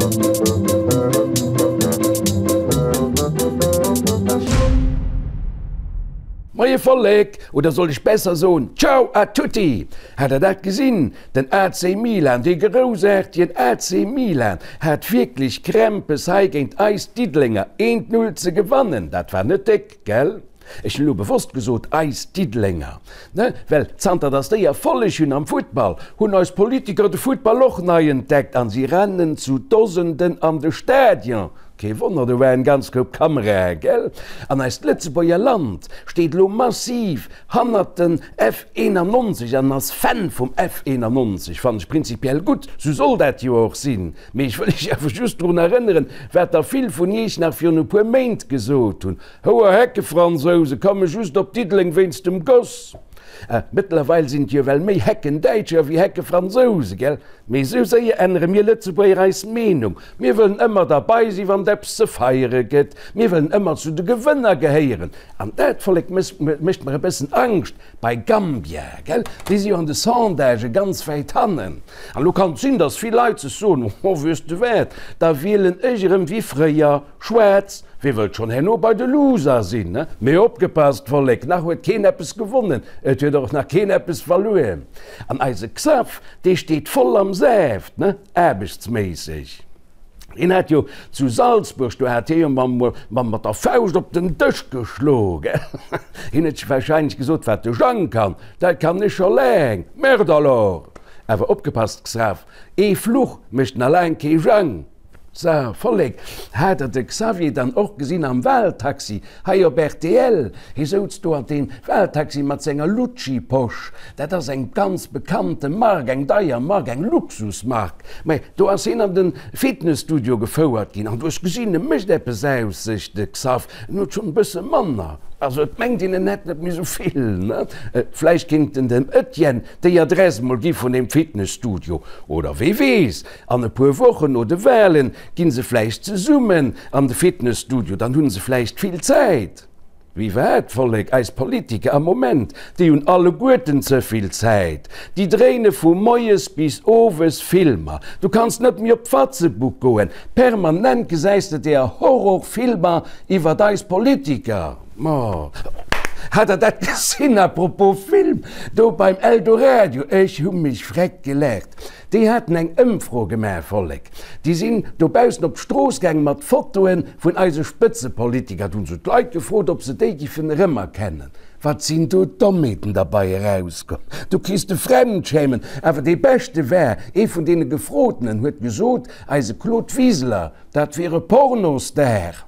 Moie Vollek, oder soll ech besser soen, Ciao a tutti! Hat der dat gesinn? Den AC Milan, dee groussaartegen AC Milan, hat wierklech Krämpes hei géint eis Diddelenger eent Null ze gewannen. Dat war net déck, gell? Ech hunn elo bewosst gesot eis Diddelenger, ne, well zanter datt déi Erfolleg hunn am Futtball, hunn eis Politiker de Futtball och nei entdeckt an si rennen zu Dosenden an de Stadion. Kee Wonner, do war en ganz Koup Kamerae, gell? An eist Lëtzebuerger Land steet elo massiv hannert den F91 an ass Fan vum F91. Fannen ech prinzipiell gutt, sou soll dat jo och sinn. Mee ech wëll iech awer just drun erënneren, wat der vill vun iech nach virun e puer Méint gesot hunn, Houer Heckefransouse komme just op Diddeleng wéinst dem Goss. Mëttlerweil sinn et jo well méi Heckendäitscher wéi Heckefransouse, gell? Mee esou séier ännere mir Lëtzebuerger eis Meenung. Mir wëllen ëmmer derbei sinn, wann et eppes ze feiere gëtt. Mir wëllen ëmmer zu de Gewënner gehéieren. An dat, Vollek, mécht mer e bëssen Angscht bei Gambia, gell? Déi si jo an de Sondagë ganz wäit hannen. An elo kann et sinn, datt vill Leit sech soen, Oh, weess de wat, da wielen ech erëm wéi fréier. Schwaarz, Wie wëllt schonn herno bei de Loser sinn, ne? Mee opgepasst, Vollek, nach huet keen eppes gewonnen, et huet och nach keen eppes verluer. An eise Xaph, dee steet voll am Saaft, ne? Aarbechtsméisseg. Hien hat jo zu Salzburg, do hat hie jo mam, mat der Fauscht op den Dësch geschlo, gell? Hien huet sech warscheinlech gesot, Wat de Jang kann, dat kann ech scho laang. Merde alors! Awer opgepasst, Xaph, ee Fluch mécht na laang kee Jang. Sa, Vollek, hat der de Xavier dann och gesinn am Wahltaxi hei op rtl? Hie souz do an deem Wahltaxi mat senger Lucci-Posch. Dat ass eng ganz bekannte Mark, eng deier Mark, eng Luxusmark. Mä do ass hien an de Fitnesstudio gefouert ginn an du hues gesinn, e mécht eppes aus sech, de Xav. En huet schonn e bësse manner, also et mengt een, en hätt net méi sou vill, ne? Vläicht kéint en dem Etienne déi Adress mol gi vun deem Fitnesstudio, oder wee weess, An e puer Wochen no de Wahlen ginn se vläicht zesummen an de Fitnesstudio, dann hunn se vläicht vill Zäit. Wéi wat, Vollek? Eis Politiker am Moment, déi hunn alleguerten ze vill Zäit. Déi dréine vu moies bis owes Filmer. Du kanns net méi op d'Fatzebook goen, permanent gesäis de deer Horrorfilmer iwwert eis Politiker. Ma hat der dat gesinn, à propos Film, do beim Eldoradio? Ech hu mech freck gelaacht. Déi haten eng Ëmfro gemaach, Vollek. Déi sinn dobaussen op d'Strooss gaang mat Fotoe vun eise Spëtzepolitiker. Do hunn se d'Leit gefrot, ob se déi giffen erëmerkennen. Wat sinn do Dommheeten derbei erauskomm! Do kriss de Fremdschämen. Awer dee beschte war, ee vun deene Gefrotenen huet gesot, eise Claude Wiseler, dat wier e Pornostar.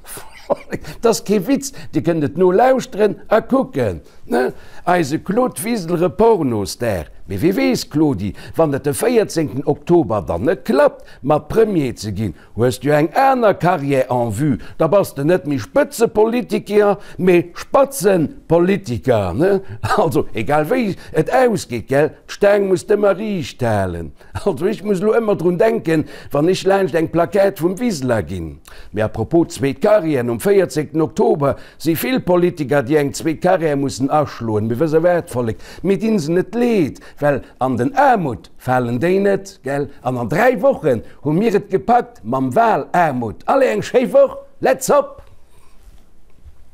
Vollek, 't ass kee Witz, Dir kënnt et nolauschteren a kucken. Ne? Eise Claude Wiseler e Pornostar. Mee wie weess, Claudi, wann et de 14 Oktober dann net klappt, mat Premier ze ginn, hues du eng aner Carrière en vue, da bass de net méi Spëtzepolitiker, mee Spatzenpolitiker. Ne? Also, egal wéi et ausgeet, gell, d'Staang muss d'ëmmer riicht halen. Also ech muss elo ëmmer drun denken, wann ech laanscht eng Plaquette vum Wiseler ginn. Mee à propos zweet Carrière, nom 14 Oktober Si vill Politiker, déi eng zweet Carrière mussen aschloen. Mee wëss e wat, Vollek, mir dinn se net leed, well an den Aarmut falen déi net, gell? An an 3 Wochen hu mir et gepackt mam Wahlaarmut. Allez, eng schéi Woch, let's hop!